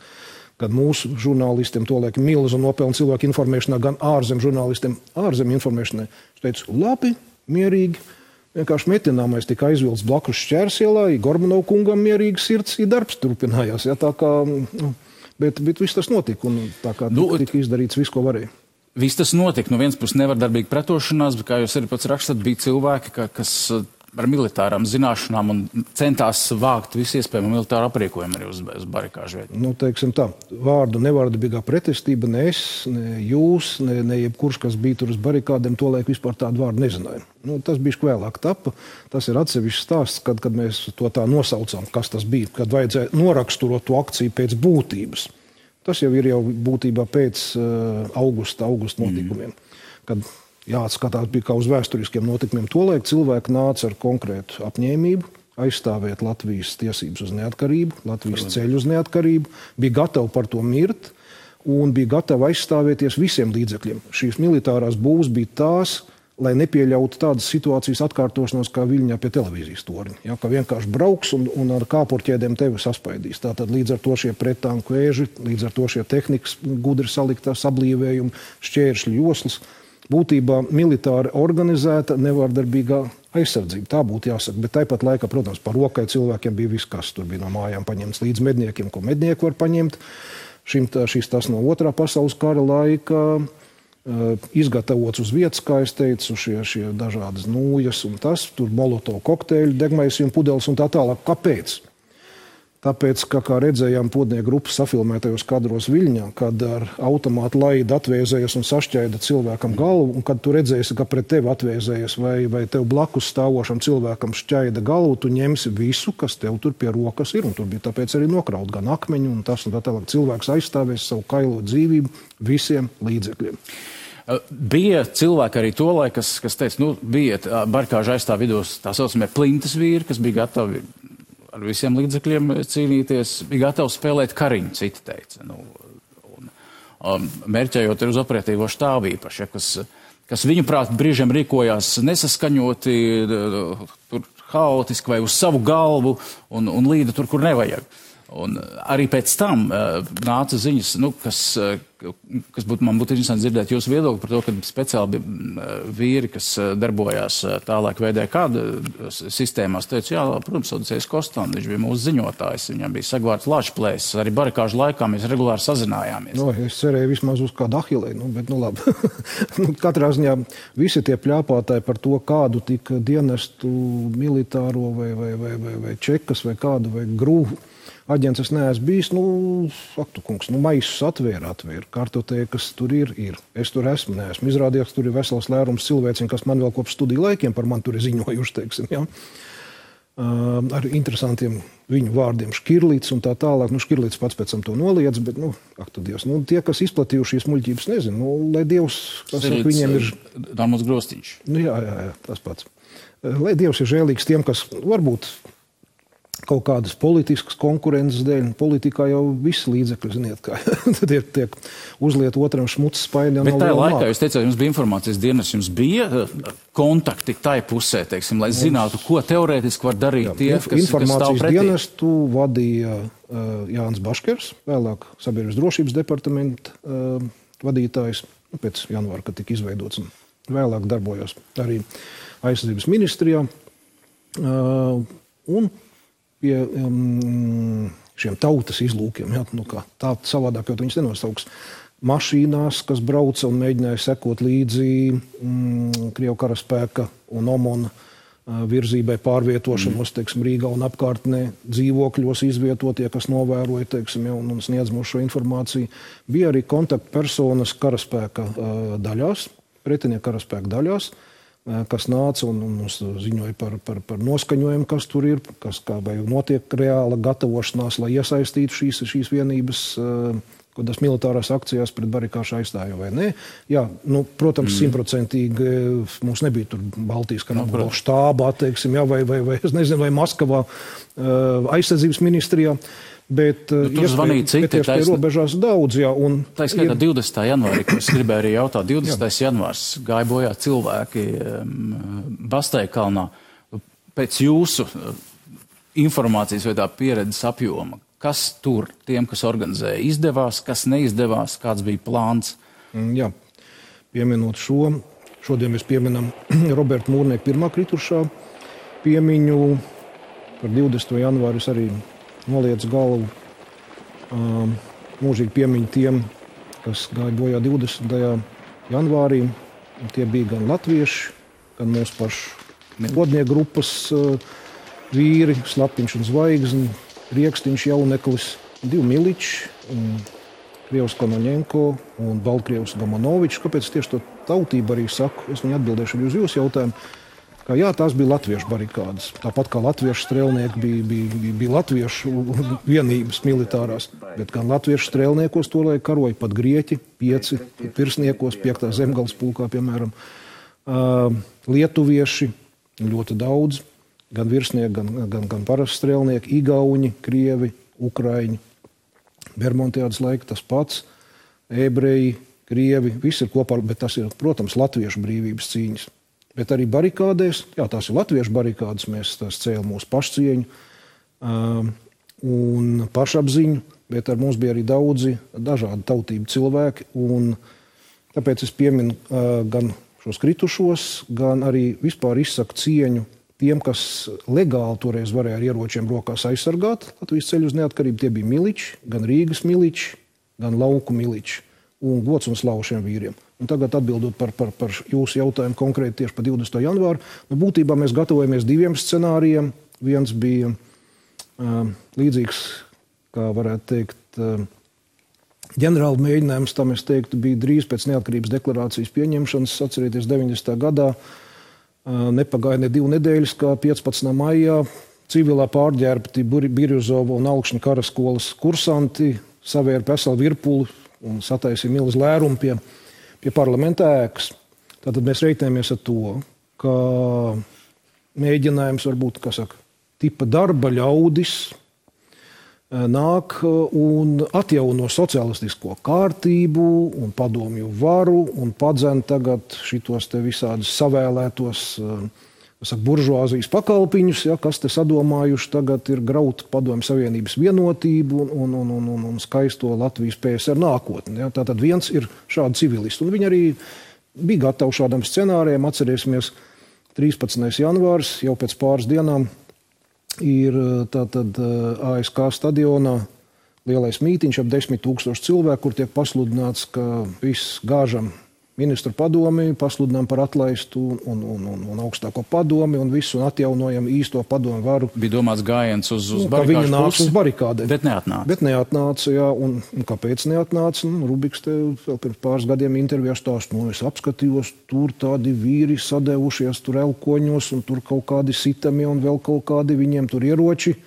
kad mūsu žurnālistiem tolaik milzu nopelna cilvēku informēšanā, gan ārzem žurnālistiem, ārzem informēšanai, viņš teica, labi, mierīgi, vienkārši metināmais tika aizvilts blakus Šķērsielā, Gorbanova kungam mierīgi sirds, darbs turpinājās. Ja, tā kā, bet viss tas notika, un tā kā tika izdarīts viss, ko varēja. Viss tas notika. No vienas puses nevardarbīga pretošanās, bet, kā jūs arī pats rakstat, bija cilvēki, kas ar militārām zināšanām un centās vākt visu iespējamo militāru aprīkojumu arī uz barikāžu vietu. Teiksim tā, vārdu nevardarbīgā pretestība, ne es, ne jūs, ne jebkurš, kas bija tur uz barikādēm, tolaik vispār tādu vārdu nezināja. Tas bija vēlāk tapa. Tas ir atsevišķs stāsts, kad mēs to tā nosaucām, kas tas bija, kad vajadzēja noraksturot to akciju pēc būtības. Tas jau ir būtībā pēc augusta notikumiem, kad jāatskatās bija kā uz vēsturiskiem notikumiem. Tolaik cilvēki nāca ar konkrētu apņēmību, aizstāvēt Latvijas tiesības uz neatkarību, Latvijas ceļu uz neatkarību, bija gatavi par to mirt un bija gatavi aizstāvēties visiem līdzekļiem. Šīs militārās būvs bija tās, lai nepieļautu tādas situācijas atkārtošanos kā Viļņā pie televīzijas torņa. Ja, ka vienkārši brauks un ar kāpurķēdēm tevi saspaidīs. Tātad līdz ar to šie prettanku vēži, līdz ar to šie tehnikas gudri saliktās sablīvējumi, šķēršļu joslas. Būtībā militāri organizēta nevardarbīgā aizsardzība. Tā būtu jāsaka, bet tāpat laikā, protams, par rokai cilvēkiem bija viss, kas tur bija no mājām paņemts līdz medniekiem, ko mednieki var paņemt. Šis tas no Otrā pasaules kara laika, izgatavots uz vietas, kā es teicu, šie dažādas nūjas un tas, tur molotovu kokteļu, degmaisījuma pudeles un tā tālāk. Kāpēc? Tāpēc, kā redzējām podnieku grupas safilmētajos kadros Viļņā, kad ar automātu laidu atvēzējas un sašķaida cilvēkam galvu, un kad tu redzēsi, ka pret tevi atvēzējas vai tev blakus stāvošam cilvēkam šķaida galvu, tu ņemsi visu, kas tev tur pie rokas ir, un tur bija tāpēc arī nokraut gan akmeņu un tas, un tā tālāk cilvēks aizstāvēs savu kailo dzīvību visiem līdzekļiem. Bija cilvēki arī tolaik, kas teica, bija barikāžu aizstāv vidos tā saucamie plintas vīri, kas bija gatavi ar visiem līdzekļiem cīnīties, bija gatavi spēlēt kariņu, citi teica. Mērķējot uz operatīvo štābu īpaši, kas viņuprāt brīžiem rīkojās nesaskaņoti, tur haotiski vai uz savu galvu un līda tur, kur nevajag. Un arī pēc tam nāca ziņas, kas man būtu interesanti dzirdēt jūsu viedokli par to, ka speciāli vīri, kas darbojās tālāk VDK sistēmās, teica, jā, protams, Odisejs Kostam, viņš bija mūsu ziņotājs, viņam bija sagvārds Lašplēs, arī barikāžu laikā mēs regulāri sazinājāmies. Es cerēju vismaz uz kādu Ahilei, bet labi. Katrā ziņā visi tie pļāpātāji par to, kādu tika dienestu militāro vai čekas vai kādu vai grūvu aģents es neesmu bijis, faktu kungs, maisus atvēra, kartotēkas tur ir. Es tur neesmu izrādījis, tur ir vesels lērums cilvēciņu, kas man vēl kopš studiju laikiem par mani tur ir ziņojuši, teiksim, ja. Ar interesantiem viņu vārdiem Škirlīts un tā tālāk. Škirlīts pats pēc tam to noliedz, bet, Dievs, tie, kas izplatījuši šīs muļķības, nezinu, lai Dievs, kas viņiem ir... Dārmos Grostiņš. Jā, tas pats. Lai Dievs ir žēlīgs tiem, kas varbūt kaut kādas politiskas konkurences dēļ. Politikā jau visi līdzekļi, ziniet, kā tad tiek uzliet otram šmucis spaiļā. Bet tajā laikā, jūs teicāt, jums bija informācijas dienas, jums bija kontakti tai pusē, teiksim, lai zinātu, ko teorētiski var darīt tie, kas stāv pretī? Informācijas dienestu vadīja Jānis Baškers, vēlāk Sabiedrības drošības departamenta vadītājs, pēc janvāra, kad tika izveidots un vēlāk darbojos arī aizsardzības ministrijā. Un pie šiem tautas izlūkiem, kā tā savādāk, jo viņus nenosauks, mašīnās, kas brauca un mēģināja sekot līdzi Krievu karaspēka un OMON virzībai pārvietošanos, Rīgā un apkārtnē, dzīvokļos izvietotie, kas novēroja, un sniedz mums šo informāciju. Bija arī kontaktpersonas karaspēka daļās, pretinieku karaspēka daļās, kas nāca un mums ziņoja par noskaņojumu, kas tur ir, vai notiek reāla gatavošanās, lai iesaistītu šīs vienības kādas militārās akcijās pret barikāšu aizstāju vai nē. Jā, protams, 100% mums nebija tur Baltijas kara štābā, vai es nezinu, vai Maskavā aizsardzības ministrijā, bet zvanīja citi, bet robežās daudz, jā. Tā skaitā 20. janvārī, ko es gribēju arī jautāt, 20. janvārs gāja bojā cilvēki Basteikalnā. Pēc jūsu informācijas vai tā pieredzes apjoma, kas tur tiem, kas organizēja, izdevās, kas neizdevās, kāds bija plāns? Jā, pieminot šodien mēs pieminam Roberta Mūrnieka pirmā kritušā piemiņu. Par 20. janvāri es arī noliec galvu mūžīgi piemiņu tiem, kas gāja bojā 20. janvārī. Tie bija gan latvieši, gan mūsu pašu godnieku grupas vīri, Slapiņš un Zvaigzni, Riekstiņš, Jauneklis, 2 miliči, Krievs Konoņenko un Baltkrievs Gamonovičs. Kāpēc tieši to tautību arī saku? Es viņu atbildēšu arī uz jūsu jautājumu. Ka jā, tās bija latviešu barikādas. Tāpat kā latviešu strēlnieki bija latviešu vienības militārās. Bet gan latviešu strēlniekos tolaik karoja pat grieķi, 5 pirsniekos, 5. zemgales pulkā, piemēram. Lietuvieši ļoti daudz. Gan virsnieki, gan parasti strēlnieki, igauņi, krievi, ukraiņi. Bermontiādas laika tas pats, ebreji, krievi, visi ir kopā, bet tas ir, protams, latviešu brīvības cīņas. Bet arī barikādēs, jā, tās ir latviešu barikādes, mēs tās cēlam mūsu pašcieņu un pašapziņu, bet ar mums bija arī daudzi dažādi tautību cilvēki, un tāpēc es pieminu gan šos kritušos, gan arī vispār izsaku cieņu tiem, kas legāli toreiz varēja ar ieročiem rokās aizsargāt Latvijas ceļu uz neatkarību. Tie bija miliči, gan Rīgas miliči, gan lauku miliči. Un gods un slavu šiem vīriem. Un tagad atbildot par jūsu jautājumu konkrēti tieši par 20. janvāru. Būtībā mēs gatavojamies 2 scenārijiem. Viens bija līdzīgs, kā varētu teikt, ģenerāla mēģinājums, tam es teiktu, bija drīz pēc neatkarības deklarācijas pieņemšanas. Atcerieties, 90. gadā nepagāja ne 2 nedēļas, kā 15. maijā civilā pārģērbti Birjuzova un Alkšņa karaskolas kursanti savēra veselu virpuli un sataisīja milzu lērumu pie parlamenta ēkas. Tātad mēs reiķinamies ar to, ka mēģinājums varbūt, tipa darba ļaudis nāk un atjauno socialistisko kārtību un padomju varu un padzen tagad šitos te visādus savēlētos buržuāzijas pakalpiņus, kas te sadomājuši tagad ir graut padomju savienības vienotību un skaisto Latvijas PSR nākotni. Ja. Tātad viens ir šādi civilisti. Un viņi arī bija gatavi šādam scenārijam. Atcerēsimies, 13. janvārs jau pēc pāris dienām ir tātad ASK stadionā lielais mītiņš ap 10 000 cilvēku, kur tiek pasludināts, ka viss gāžam ministru padomi, pasludinām par atlaistu un augstāko padomi un visu un atjaunojam īsto padomu varu. Bija domāts gājiens uz barikāšu pusi. Uz barikādēm. Bet neatnāca. Bet neatnāca, jā. Un kāpēc neatnāca? Rubiks te vēl pirms pāris gadiem intervijā stāst, es apskatījos, tur tādi vīri sadevušies tur elkoņos un tur kaut kādi sitami un vēl kaut kādi viņiem tur ieroči.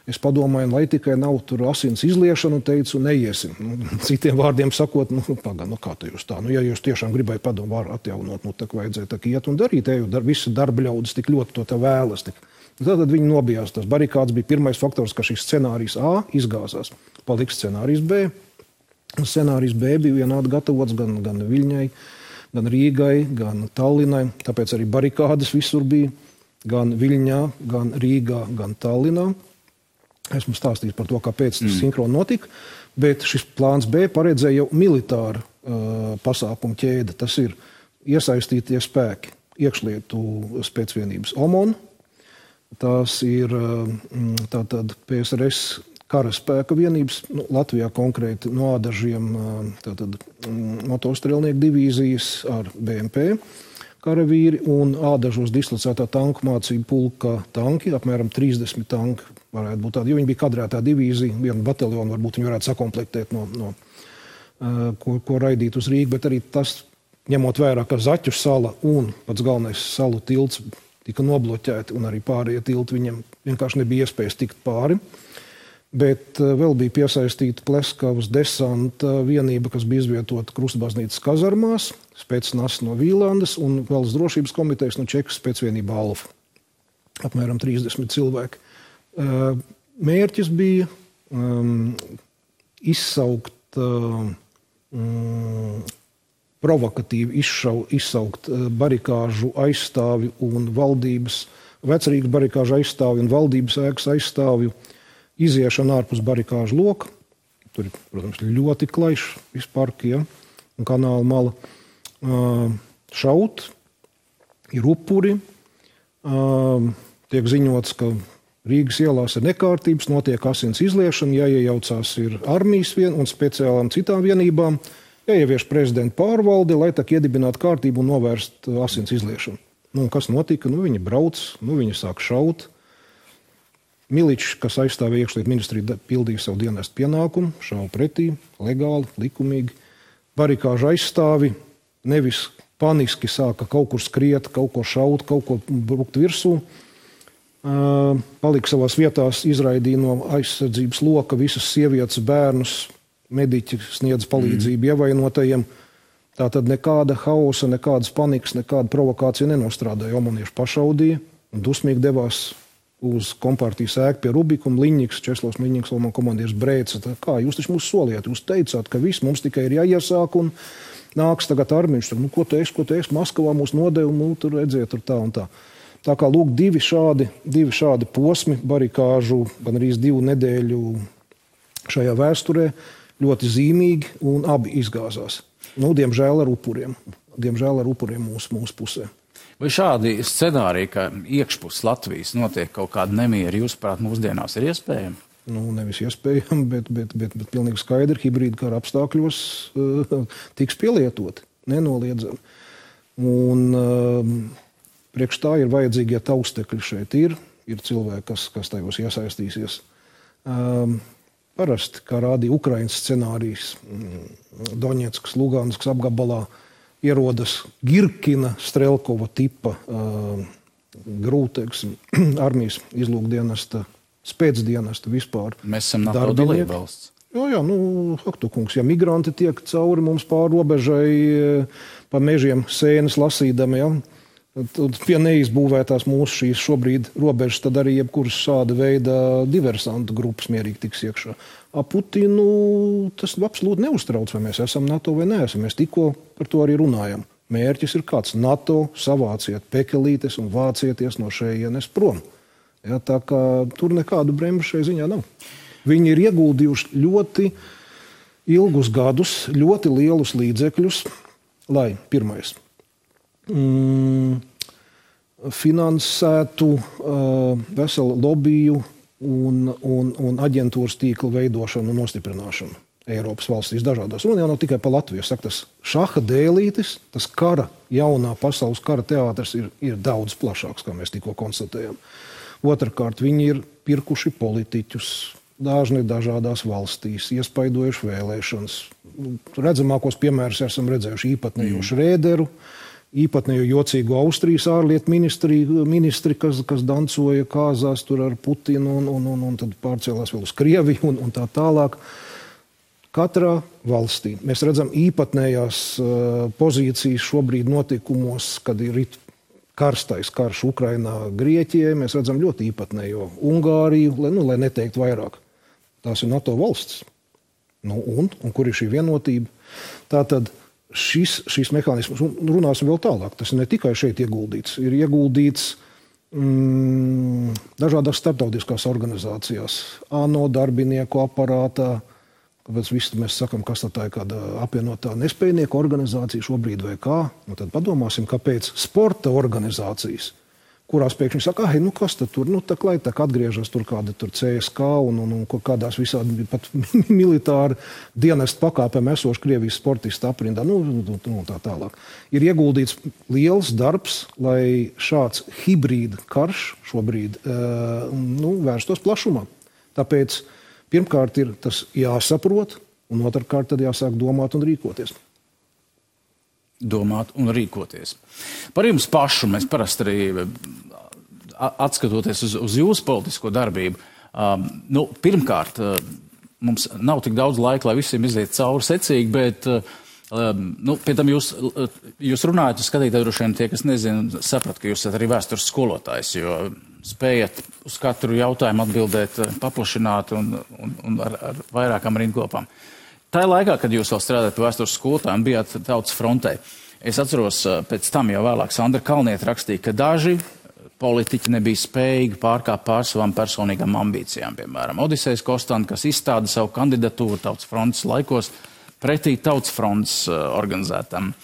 Es padomāju, lai tikai nav tur asins izliešana, un teicu, neiesim. Citiem vārdiem sakot, kā te jūs tā? Ja jūs tiešām gribēja padomu varu atjaunot, tā vajadzēja tā iet un darīt, visi darba ļaudis tik ļoti to te vēlas. Tātad viņi nobijās. Tas barikāds bija pirmais faktors, ka šis scenārijs A izgāzās. Paliks scenārijs B. Scenārijs B bija vienādi gatavots gan Viļņai, gan Rīgai, gan Tallinai. Tāpēc arī barikādes visur bija gan Viļņā, gan Rīgā, gan Tallinā. Esmu stāstījis par to, kāpēc tas sinhroni notika, bet šis plāns B paredzēja jau militāru pasākumu ķēde. Tas ir iesaistītie spēki, iekšlietu spēcvienības OMON, tās ir tātad PSRS karaspēka vienības, Latvijā konkrēti no ādažiem tātad motostrēlnieku divīzijas ar BMP karavīri un ādažos dislocētā tanku mācību pulka tanki, apmēram 30 tanki varētu būt tādi, jo viņi bija kadrētā divīzija, vienu bataljonu varbūt viņi varētu sakomplektēt ko raidīt uz Rīgu, bet arī tas, ņemot vērā, ka Zaķu sala un pats galvenais salu tilts tika nobloķēti un arī pārējie tilti viņam vienkārši nebija iespējas tikt pāri. Bet vēl bija piesaistīta Pleskavas desanta vienība, kas bija izvietota Krustbaznīcas kazarmās, spēcnas no Vīlandes un Valsts drošības komitejas no Čekas spēcvienība Alfa. Apmēram 30 cilvēki. Mērķis bija izsaukt, provokatīvi izsaukt barikāžu aizstāvju un valdības, vecrīgas barikāžu aizstāvju un valdības ēkas aizstāvju iziešana ārpus barikāžu loka. Tur ir, protams, ļoti klaišs viss parki, ja, un kanāla mala. Šaut, ir upuri. Tiek ziņots, ka Rīgas ielās ir nekārtības, notiek asins izliešana, jāiejaucās ir armijas un speciālām citām vienībām, jāievieš prezidenta pārvalde, lai tā iedibinātu kārtību un novērst asins izliešanu. Kas notika? Viņi brauc, viņi sāk šaut. Miličs, kas aizstāvēja iekšlietu ministriju, pildīja savu dienestu pienākumu, šauja pretī, legāli, likumīgi. Barikāžu aizstāvi nevis paniski sāka kaut kur skriet, kaut ko šaut, kaut ko brukt virsū. Palika savās vietās, izraidīja no aizsardzības loka visas sievietes, bērnus, mediķi sniedz palīdzību ievainotajiem. Tātad nekāda hausa, nekādas panikas, nekāda provokācija nenostrādāja. Omanieši pašaudīja un dusmīgi devās uz kompartijas ēku pie Rubikuma. Liņņiks, Česlavs Liņņiks, man komandieris brēca. Kā jūs taču mūs soliet? Jūs teicāt, ka viss mums tikai ir jāiesāk un nāks tagad armiņš. Ko tu esi? Maskavā mūs nodevu, tur redziet, tur tā un tā. Tā kā lūk, divi šādi posmi barikāžu, gan arī 2 nedēļu šajā vēsturē, ļoti zīmīgi un abi izgāzās. Diemžēl ar upuriem mūsu pusē. Vai šādi scenāriji, ka iekšpus Latvijas notiek kaut kāda nemieri, jūsuprāt, mūsdienās ir iespējami? Nevis iespējami, bet pilnīgi skaidri hibrīda kara apstākļos tiks pielietoti, nenoliedzami. Un priekš tā ir vajadzīgie taustekļi šeit ir cilvēki, kas tajos iesaistīsies. Parasti, kā rādīja Ukrainas scenārijs, Doņetskas, Luganskas apgabalā, ierodas Girkina, Strelkova tipa grūtēks armijas izlūkdienesta, spēcdienesta vispār. Mēs esam NATO dalībvalsts. Jā, Haktukungs, ja migranti tiek cauri mums pāri robežai pa mežiem sēnes lasīdami, ja, tad pie neizbūvētās mūsu šīs šobrīd robežas, tad arī jebkuras šāda veida diversantu grupas mierīgi tiks iekšā. Putinu tas absolūti neuztrauc, vai mēs esam NATO vai neesam. Mēs tikko par to arī runājam. Mērķis ir kāds: NATO, savāciet pekelītes un vācieties no šejienes prom. Ja, tā kā tur nekādu bremžu šai ziņā nav. Viņi ir ieguldījuši ļoti ilgus gadus, ļoti lielus līdzekļus, lai pirmais finansētu veselu lobiju un aģentūras tīklu veidošanu un nostiprināšanu Eiropas valstīs dažādās. Un jau nav tikai par Latviju. Saka, tas šaha dēlītis, tas jaunā pasaules kara teātris ir daudz plašāks, kā mēs tikko konstatējam. Otrakārt, viņi ir pirkuši politiķus dažni dažādās valstīs, iespaidojuši vēlēšanas. Redzamākos piemērus esam redzējuši īpatnējo Šrēderu, īpatnējo jocīgo Austrijas ārlietu ministri, kas dancoja kāzās tur ar Putinu un tad pārcēlās vēl uz Krieviju un tā tālāk. Katrā valstī mēs redzam īpatnējās pozīcijas šobrīd notikumos, kad ir karstais karš Ukrainā, Grieķijai. Mēs redzam ļoti īpatnējo Ungāriju, lai neteikt vairāk. Tās ir NATO valsts. Un kur ir šī vienotība? Tātad šis mehānisms, runāsim vēl tālāk, tas ne tikai šeit ieguldīts, ir ieguldīts dažādās starptautiskās organizācijās, ANO darbinieku aparātā, kāpēc visi mēs sakam, kas tā ir kāda apvienotā nespējnieku organizācija šobrīd vai kā. Un tad padomāsim, kāpēc sporta organizācijas, kurās pēkšņi saka, nu kas tad tur, nu tā klaitāk atgriežas tur kāda tur CSK un kādās visādi pat militāri dienestu pakāpēm esoši Krievijas sportisti aprindā, nu tā tālāk. Ir ieguldīts liels darbs, lai šāds hibrīda karš šobrīd vērstos plašumā. Tāpēc pirmkārt ir tas jāsaprot, un otrkārt tad jāsāk domāt un rīkoties. Domāt un rīkoties. Par jums pašu mēs parasti arī atskatoties uz jūsu politisko darbību. Pirmkārt, mums nav tik daudz laika, lai visiem iziet cauri secīgi, bet pie tam jūs runājat, skatītāji droši vien tie, kas nezina, saprat, ka jūs esat arī vēstures skolotājs, jo spējat uz katru jautājumu atbildēt paplašināt un ar vairākām rindkopām. Tā laikā, kad jūs vēl strādājat vēstures skolotājiem, bijāt Tautas frontē. Es atceros, pēc tam jau vēlāk Sandra Kalniete rakstīja, ka daži politiķi nebija spējīgi pārkāpt pār savām personīgām ambīcijām. Piemēram, Odisejs Kostanta, kas izstāda savu kandidatūru Tautas frontes laikos pretī Tautas frontes organizētam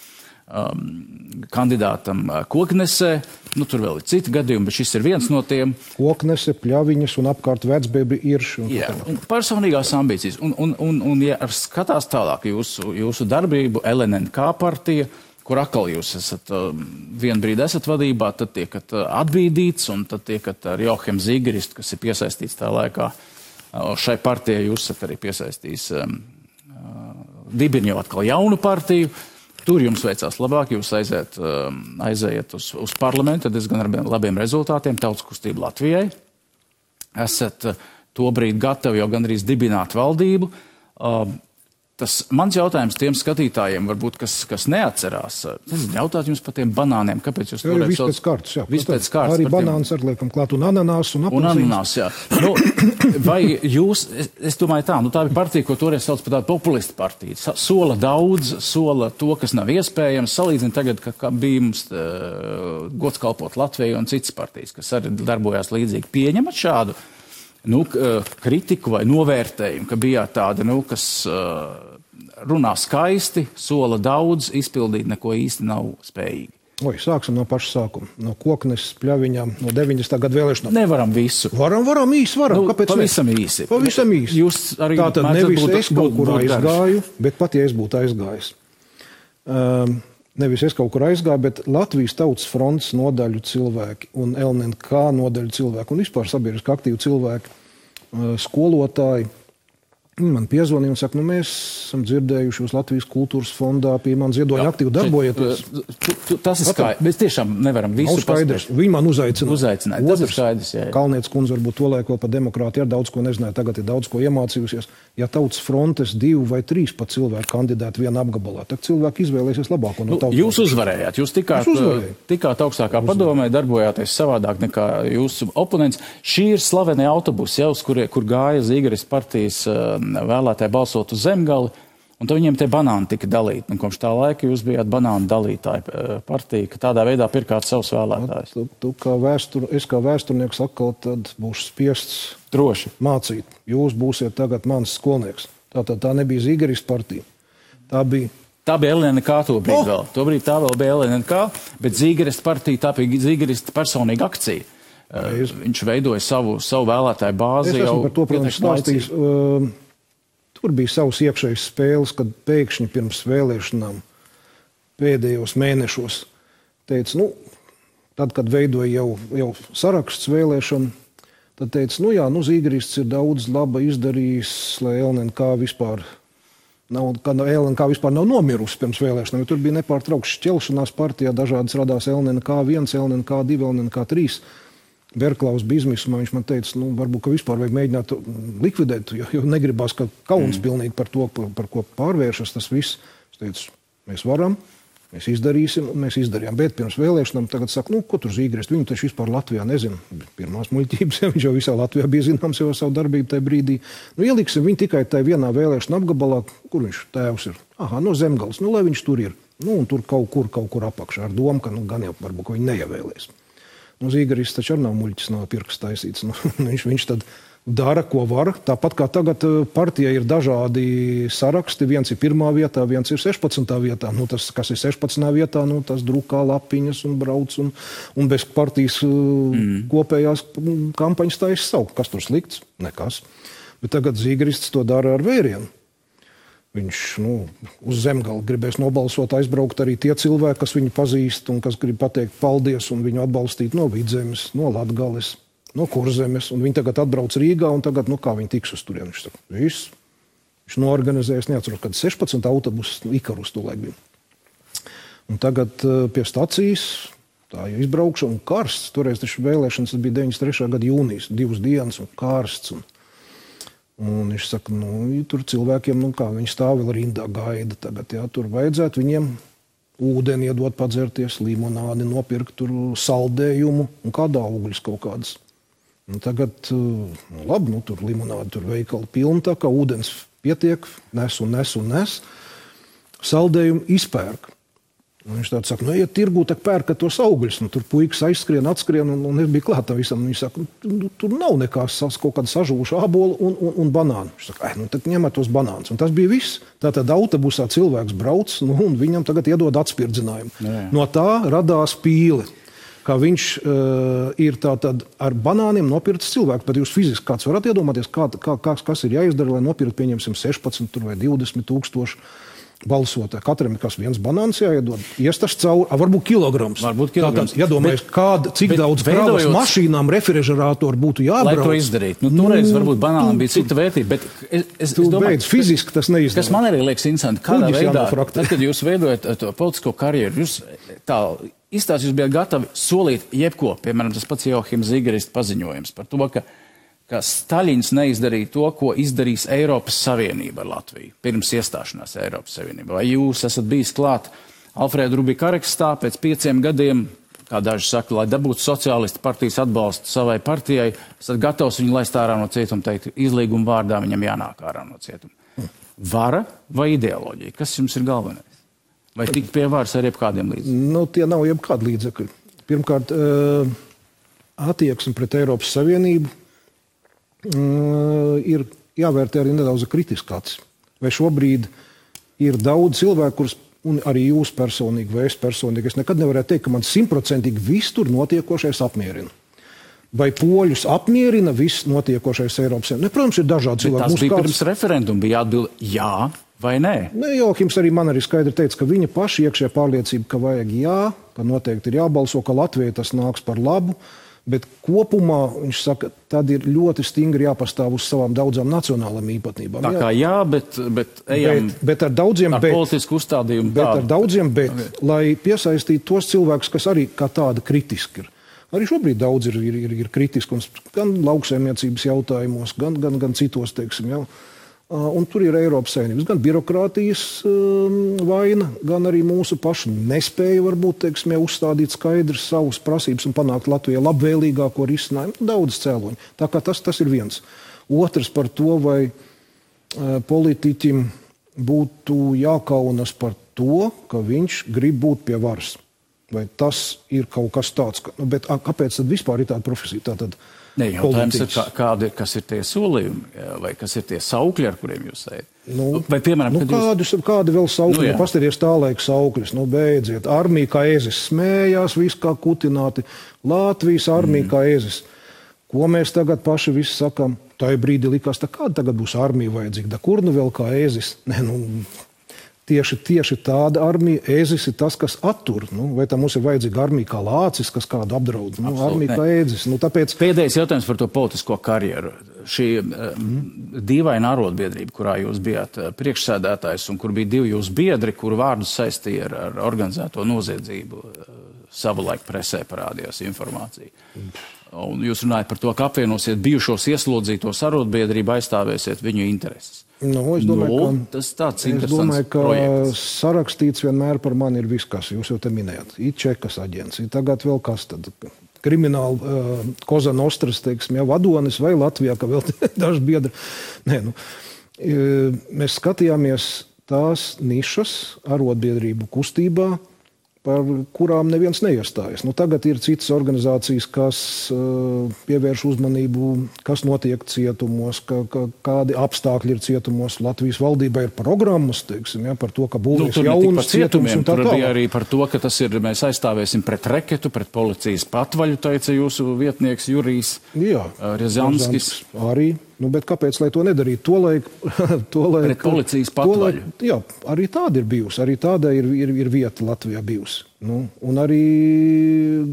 kandidātam Koknesē. Tur vēl ir citi gadījumi, bet šis ir viens no tiem. Koknese, Pļaviņas un apkārt Vecbebri Irši. Jā, un personīgās ambīcijas. Un ja skatās tālāk jūsu darbību, LNNK partija, kur atkal jūs esat vienu brīdi esat vadībā, tad tiekat atbīdīts, un tad tiekat ar Joachim Zīgeristu, kas ir piesaistīts tā laikā. Šai partijai jūs esat arī piesaistījis dibini jau atkal jaunu partiju. Tur jums veicās labāk, jūs aizējat uz parlamentu, diezgan ar labiem rezultātiem, Tautas kustība Latvijai. Esat tobrīd gatavi jau gandrīz dibināt valdību. Tas mans jautājums tiem skatītājiem, varbūt, kas neatcerās, jautāt jums par tiem banāniem, kāpēc jūs to viss pēc kārtas, jā. Viss pēc kārtas. Arī banāns ar liekam klāt un ananās un apelsīns. Un ananās, jā. Vai jūs, es domāju tā ir partija, ko toreiz sauc par tādu populistu partiju. Sola daudz, sola to, kas nav iespējams. Salīdzina tagad, ka bija mums gods kalpot Latvijai un citas partijas, kas arī darbojās līdzīgi. Pieņemat šādu kritiku vai novērtējumu, ka bijāt tādi, kas runā skaisti, sola daudz, izpildīt neko īsti nav spējīgi? Sāksim no paša sākuma. No Koknes, Pļaviņām, no 90. gadu vēlēšanām. Nevaram visu. Varam, īsi varam. Kāpēc pavisam īsi. Pavisam īsi. Jūs arī tātad nevis es kaut kur aizgāju, bet pat ja es būtu aizgājis. Nevis es kaut kur aizgāju, bet Latvijas Tautas frontes nodaļu cilvēki un LNNK nodaļu cilvēki un vispār sabiedriski aktīvi cilvēki, skolotāji, man piezvanīja un saka, mēs esam dzirdējuši jūs Latvijas kultūras fondā pie man ziedoņa aktīvi darbojieties. Tas ir skaidrs. Mēs tiešām nevaram visu paspēt. Viņi man uzaicināja. Tas ir skaidrs, jā. Kalnietes kundze varbūt to laik vēl par demokrātiju ar daudz ko nezināja, tagad ir daudz ko iemācījusies. Ja Tautas frontes 2 vai 3 pat cilvēki kandidēti vienā apgabalā, tad cilvēki izvēlēsies labāko no Tautas. Jūs uzvarējāt, jūs tikāt augstākā padomē, darbojāties savādāk nekā jūsu oponents. Šī ir slavenie autobusi, kur gāja Zīgeris partijas vēlētāji balsot uz Zemgali, un tad viņiem tie banāni tika dalīti. Un kopš tā laika jūs bijāt banānu dalītāji partija, ka tādā veidā pirkāt savus vēlētājus. Es kā vēsturnieks atkal tad būšu spiests droši mācīt. Jūs būsiet tagad mans skolnieks. Tā nebija Zīgeris partija. Tā bija LNNK tobrīd vēl. Tobrīd tā vēl bija LNNK, bet Zīgeris partija, tā bija Zīgeris personīga akcija. Viņš veidoja savu vēlētāju bāzi. Es esmu par to, protams, stāstījis. Tur bija savas iekšējas spēles, kad pēkšņi pirms vēlēšanām pēdējos mēnešos teica, tad, kad veidoja jau saraksts vēlēšanu, tad teica, Zīgerists ir daudz laba izdarījis, lai LNNK vispār nav nomirusi pirms vēlēšanām, jo tur bija nepārtraukts šķelšanās partijā, dažādas radās LNNK 1, LNNK 2, LNNK 3. Berklaus bija izmisumā, viņš man teica, varbūt, ka vispār vajag mēģināt likvidēt, jo negribās, ka kauns pilnīgi par to, par ko pārvēršas tas viss. Es teicu, mēs varam, mēs izdarīsim, un mēs izdarījām. Bet pirms vēlēšanām tagad saka, ko tur Zīgerist, viņu taču vispār Latvijā nezinu. Pirmās muļķības, viņš jau visā Latvijā bija zināms jau savu darbību tajā brīdī. Ieliksim viņu tikai tajā vienā vēlēšana apgabalā, kur viņš tēvs ir. No Zemgales, lai viņš tur ir. Un tur kaut kur apakšā ar domu, ka gan jau varbūt, ka viņi neievēlēs. Zīgeris taču arī nav muļķis, nav pirksts taisīts. Viņš tad dara, ko var. Tāpat kā tagad partijai ir dažādi saraksti. Viens ir 1. vietā, viens ir 16. vietā. Nu, tas, kas ir 16. vietā, nu, tas drukā lapiņas un brauc un bez partijas kopējās kampaņas taisa savu. Kas tur slikts? Nekas. Bet tagad Zīgrists to dara ar vērienu. Viņš uz Zemgali gribēs nobalsot, aizbraukt arī tie cilvēki, kas viņu pazīst un kas grib pateikt paldies un viņu atbalstīt no Vidzemes, no Latgales, no Kurzemes, un viņi tagad atbrauc Rīgā, un tagad, kā viņi tiks uz turieni. Viņš saka, viss. Viņš noorganizējas, neatceros, kad 16 autobusus Ikarus tolaik bija. Un tagad pie stacijas, tā jau izbraukšana un karsts, toreiz taču vēlēšanas bija 93. gada jūnijas, 2 dienas un karsts. Un viņš saka, tur cilvēkiem, kā viņi stāv vēl rindā gaida tagad, jā, tur vajadzētu viņiem ūdeni iedot padzerties, limonādi, nopirkt tur saldējumu un kādā augļus kaut kādas. Un tagad, labi, tur limonādi, tur veikali pilni, tā kā ūdens pietiek, nes. Saldējumu izpērk. Un viņš tāds saka, ja tirgū, tak pērkat tos augļus. Tur puikas aizskrien, atskrien, un es biju klāt tam visam. Viņš saka, tur nav nekās kaut kāda sažūša ābola un banānu. Viņš saka, tad ņemat tos banānus. Un tas bija viss. Tātad autobusā cilvēks brauc, un viņam tagad iedod atspirdzinājumu. Jā. No tā radās pīle. Kā viņš ir tātad ar banāniem nopirkts cilvēks, bet jūs fiziski kāds varat iedomāties, kas ir jāizdara, lai nopirkt, pieņemsim, 16 vai 20 tūkstoši balsotāji. Katram ir kas viens banāns jāiedod. Iestas cauri, varbūt kilograms. Tātad, iedomājies, cik daudz kravas mašīnām refrižerātoru būtu jābrauc. Lai to izdarīt. Toreiz varbūt banānam bija cita vērtība, bet es domāju, fiziski tas neizdara. Kas man arī liekas interesanti, kādā veidā, tad, kad jūs veidojat to politisko karjeru, jūs tā izstāst, jūs bijat gatavi solīt jebko, piemēram, tas pats Johims Zīgrists paziņojums par to, ka Staļins neizdarīja to, ko izdarīs Eiropas Savienība ar Latviju, pirms iestāšanās Eiropas Savienībā. Vai jūs esat bijis klāt Alfrēda Rubika arekstā pēc 5 gadiem, kā daži saka, lai dabūtu sociālistu partijas atbalstu savai partijai, esat gatavs viņu laist ārā no cietuma, teikt, izlīguma vārdā viņam jānāk ārā no cietuma. Vara vai ideoloģija? Kas jums ir galvenais? Vai tikt pie varas ar jebkādiem līdzekļiem? Tie nav jebkādi līdzekļi. Pirmkārt, attieksme pret Eiropas Savienību ir jāvērtē arī nedaudz kritiskāts. Vai šobrīd ir daudz cilvēku, kurus, un arī jūs personīgi, vai es personīgi, es nekad nevarētu teikt, ka man 100% viss tur notiekošais apmierina. Vai poļus apmierina viss notiekošais Eiropas Savienībā? Protams, ir dažādi cilvēki. Tas bija pirms referenduma, bija jāatbild jā vai nē? Johims arī man arī skaidri teica, ka viņa paša iekšējā pārliecība, ka vajag jā, ka noteikti ir jābalso, ka Latvijai tas nāks par labu, bet kopumā, viņš saka, tad ir ļoti stingri jāpastāv uz savām daudzām nacionālām īpatnībām. Tā kā jā, bet ejam bet ar daudziem ar politisku uzstādījumu. Bet ar daudziem lai piesaistītu tos cilvēkus, kas arī kā tāda kritiski ir. Arī šobrīd daudz ir kritiski, gan lauksaimniecības jautājumos, gan citos, teiksim, jau. Un tur ir Eiropas Savienības, gan birokrātijas vaina, gan arī mūsu pašu nespēja varbūt, teiksim, uzstādīt skaidrs savus prasības un panākt Latvijai labvēlīgāko risinājumu. Daudz cēloņu. Tā kā tas ir viens. Otrs par to, vai politiķim būtu jākaunas par to, ka viņš grib būt pie varas. Vai tas ir kaut kas tāds? Bet kāpēc tad vispār ir tāda profesija? Tātad jautājums ir, kas ir tie solījumi, vai kas ir tie saukļi, ar kuriem jūs ejat? Vai, piemēram, kādi vēl saukļi? Pastāties tā laika saukļus. Beidziet. Armija kā ezis smējās, viss kā kutināti. Latvijas armija kā ezis. Ko mēs tagad paši visi sakam? Tā brīdī likās, kāda tagad būs armija vajadzīga? Kur nu vēl kā ezis? Tieši tāda armija, ēzis ir tas, kas attur. Vai tā mums ir vajadzīga armija kā lācis, kas kādu apdraud? Armija kā ēzis. Tāpēc... Pēdējais jautājums par to politisko karjeru. Šī dīvaina arotbiedrība, kurā jūs bijāt priekšsēdētājs un kur bija 2 jūsu biedri, kuru vārdus saistīja ar organizēto noziedzību, savulaik presē parādījās informācija. Un jūs runājat par to, ka apvienosiet bijušos ieslodzītos arotbiedrību, aizstāvēsiet viņu intereses. Es domāju, ka projekts. Sarakstīts vienmēr par mani ir viss, kas jūs jau te minējat. Ir Čekas aģents, tagad vēl kas tad. Krimināla Koza Nostras, teiksim, vadonis vai Latvijā, ka vēl daži biedri. Mēs skatījāmies tās nišas arotbiedrību kustībā, par kurām neviens neiestājas. Nu, tagad ir citas organizācijas, kas pievērš uzmanību, kas notiek cietumos, kādi apstākļi ir cietumos. Latvijas valdībā ir programmas, teiksim, par to, ka būvēs jaunas cietums un tā tālāk. Tur bija arī par to, ka tas ir, mēs aizstāvēsim pret reketu, pret policijas patvaļu, teica jūsu vietnieks Jurijs Riazanskis. Arī. Nu, bet kāpēc, lai to nedarītu? Tolaik, pret policijas patvaļu. Jā, arī tāda ir bijusi. Arī tāda ir vieta Latvijā bijusi. Nu, un arī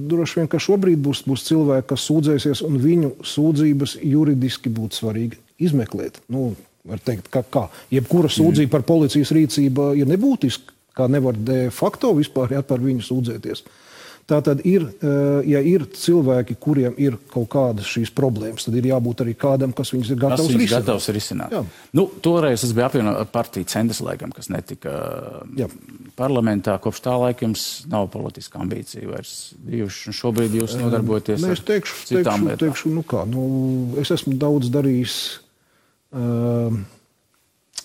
droši vien, ka šobrīd būs cilvēki, kas sūdzēsies, un viņu sūdzības juridiski būtu svarīgi izmeklēt. Nu, var teikt, kā jebkura sūdzība par policijas rīcību ir nebūtiska, kā nevar de facto vispār par viņu sūdzēties. Tātad ja ir cilvēki, kuriem ir kaut kādas šīs problēmas, tad ir jābūt arī kādam, kas viņus ir gatavs risināt. Jā. Nu, toreiz es biju apvienot partiju Centrs, laikam, kas netika parlamentā. Kopš tā laika jums nav politiska ambīcija vairs bijuši, un šobrīd jūs nodarbojaties ar citām lietām. Es esmu daudz darījis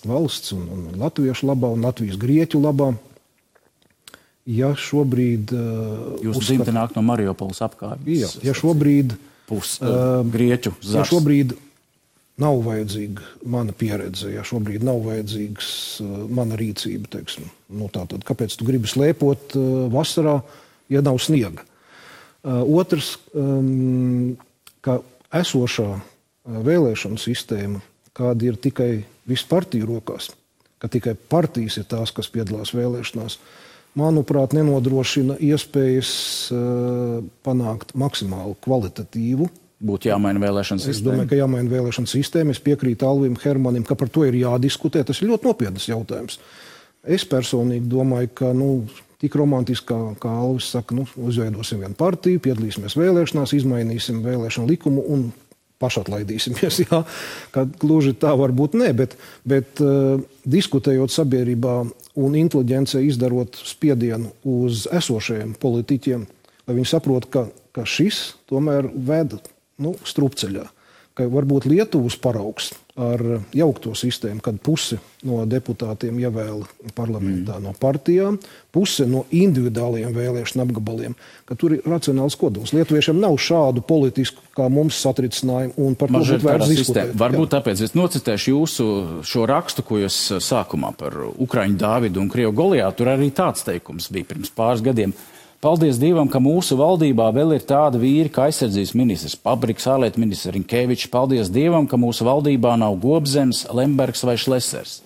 valsts un latviešu labā un Latvijas grieķu labā. Ja šobrīd... Jūs dzimte nāk no Mariupoles apkārtnes. Ja šobrīd... Grieķu zars. Ja šobrīd nav vajadzīga mana pieredze, ja šobrīd nav vajadzīgs mana rīcība, teiksim, nu tātad, kāpēc tu gribi slēpot vasarā, ja nav sniega? Otrs, ka esošā vēlēšanu sistēma, kāda ir tikai visu partiju rokās, ka tikai partijas ir tās, kas piedalās vēlēšanās, manuprāt, nenodrošina iespējas panākt maksimāli kvalitatīvu. Būtu jāmaina vēlēšana sistēma. Es domāju, ka jāmaina vēlēšana sistēma. Es piekrītu Alvim Hermanim, ka par to ir jādiskutē. Tas ir ļoti nopietnas jautājums. Es personīgi domāju, ka tik romantiski, kā Alvis saka, uzveidosim vienu partiju, piedalīsimies vēlēšanās, izmainīsim vēlēšanu likumu un pašatlaidīsimies. Jā, ka gluži tā varbūt ne, bet diskutējot sabiedrībā un inteliģencei izdarot spiedienu uz esošajiem politiķiem, lai viņi saprot, ka šis tomēr ved strupceļā. Ka varbūt Lietuvas paraugs ar jaukto sistēmu, kad pusi no deputātiem ievēla parlamentā no partijām, puse no individuāliem vēlēšanu apgabaliem, ka tur ir racionāls kodols. Lietuviešiem nav šādu politisku, kā mums satricinājumu, un par to būtu vērts diskutēt. Varbūt tāpēc es nocitēšu jūsu šo rakstu, ko jūs sākumā par Ukraiņu Dāvidu un Krievu Goliātu. Tur arī tāds teikums bija pirms pāris gadiem. Paldies Dievam, ka mūsu valdībā vēl ir tāda vīri, kā aizsardzības ministrs Pabriks, ārlietu ministrs Rinkevičs. Paldies Dievam, ka mūsu valdībā nav Gobzems, Lembergs vai Šlesers.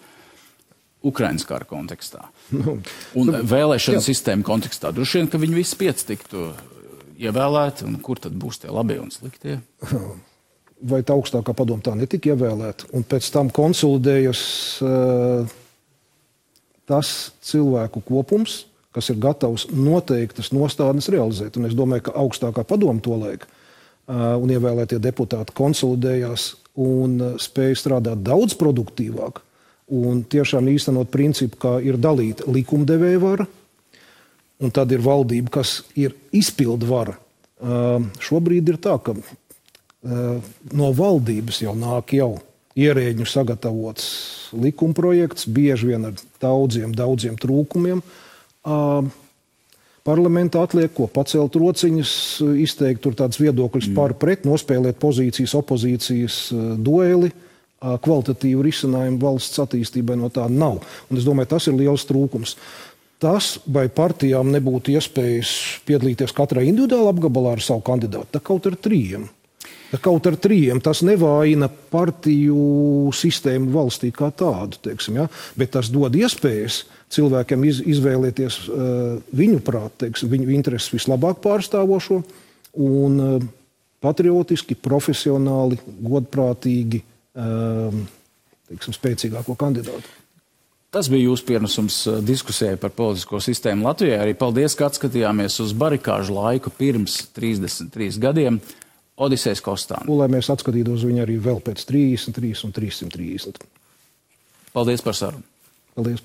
Ukrainas kara kontekstā. Un vēlēšana sistēma kontekstā. Droši vien, ka viņi visi pieci tiktu ievēlēti, un kur tad būs tie labie un sliktie? Vai tā augstākā padoma tā netika ievēlēta? Un pēc tam konsolidējas tas cilvēku kopums, kas ir gatavs noteiktas nostādnes realizēt. Un es domāju, ka augstākā padoma tolaik un ievēlētie deputāti konsolidējās un spēja strādāt daudz produktīvāk un tiešām īstenot principu, kā ir dalīta likumdevēja vara, un tad ir valdība, kas ir izpildu vara. Šobrīd ir tā, ka no valdības jau nāk ierēģu sagatavots likumprojekts, bieži vien ar daudziem trūkumiem. Parlamentā atliek, ko pacelt rociņas, izteikt tur tāds viedokļus par pret, nospēlēt pozīcijas, opozīcijas dueli, kvalitatīvu risinājumu valsts attīstībai no tā nav. Un es domāju, tas ir liels trūkums. Tas, vai partijām nebūtu iespējas piedalīties katrā individuāli apgabalā ar savu kandidātu, tā kaut ar trījiem. Tas nevājina partiju sistēmu valstī kā tādu, teiksim, ja? Bet tas dod iespējas cilvēkiem izvēlēties viņu prāt, teiksim, viņu intereses vislabāk pārstāvošo un patriotiski, profesionāli, godprātīgi, teiksim, spēcīgāko kandidātu. Tas bija jūsu pienesums diskusijai par politisko sistēmu Latvijā. Arī paldies, ka atskatījāmies uz barikāžu laiku pirms 33 gadiem. Odisejs Kostāns. Un lai mēs atskatītos viņu arī vēl pēc 33 un 330. Paldies par sarunu. Paldies.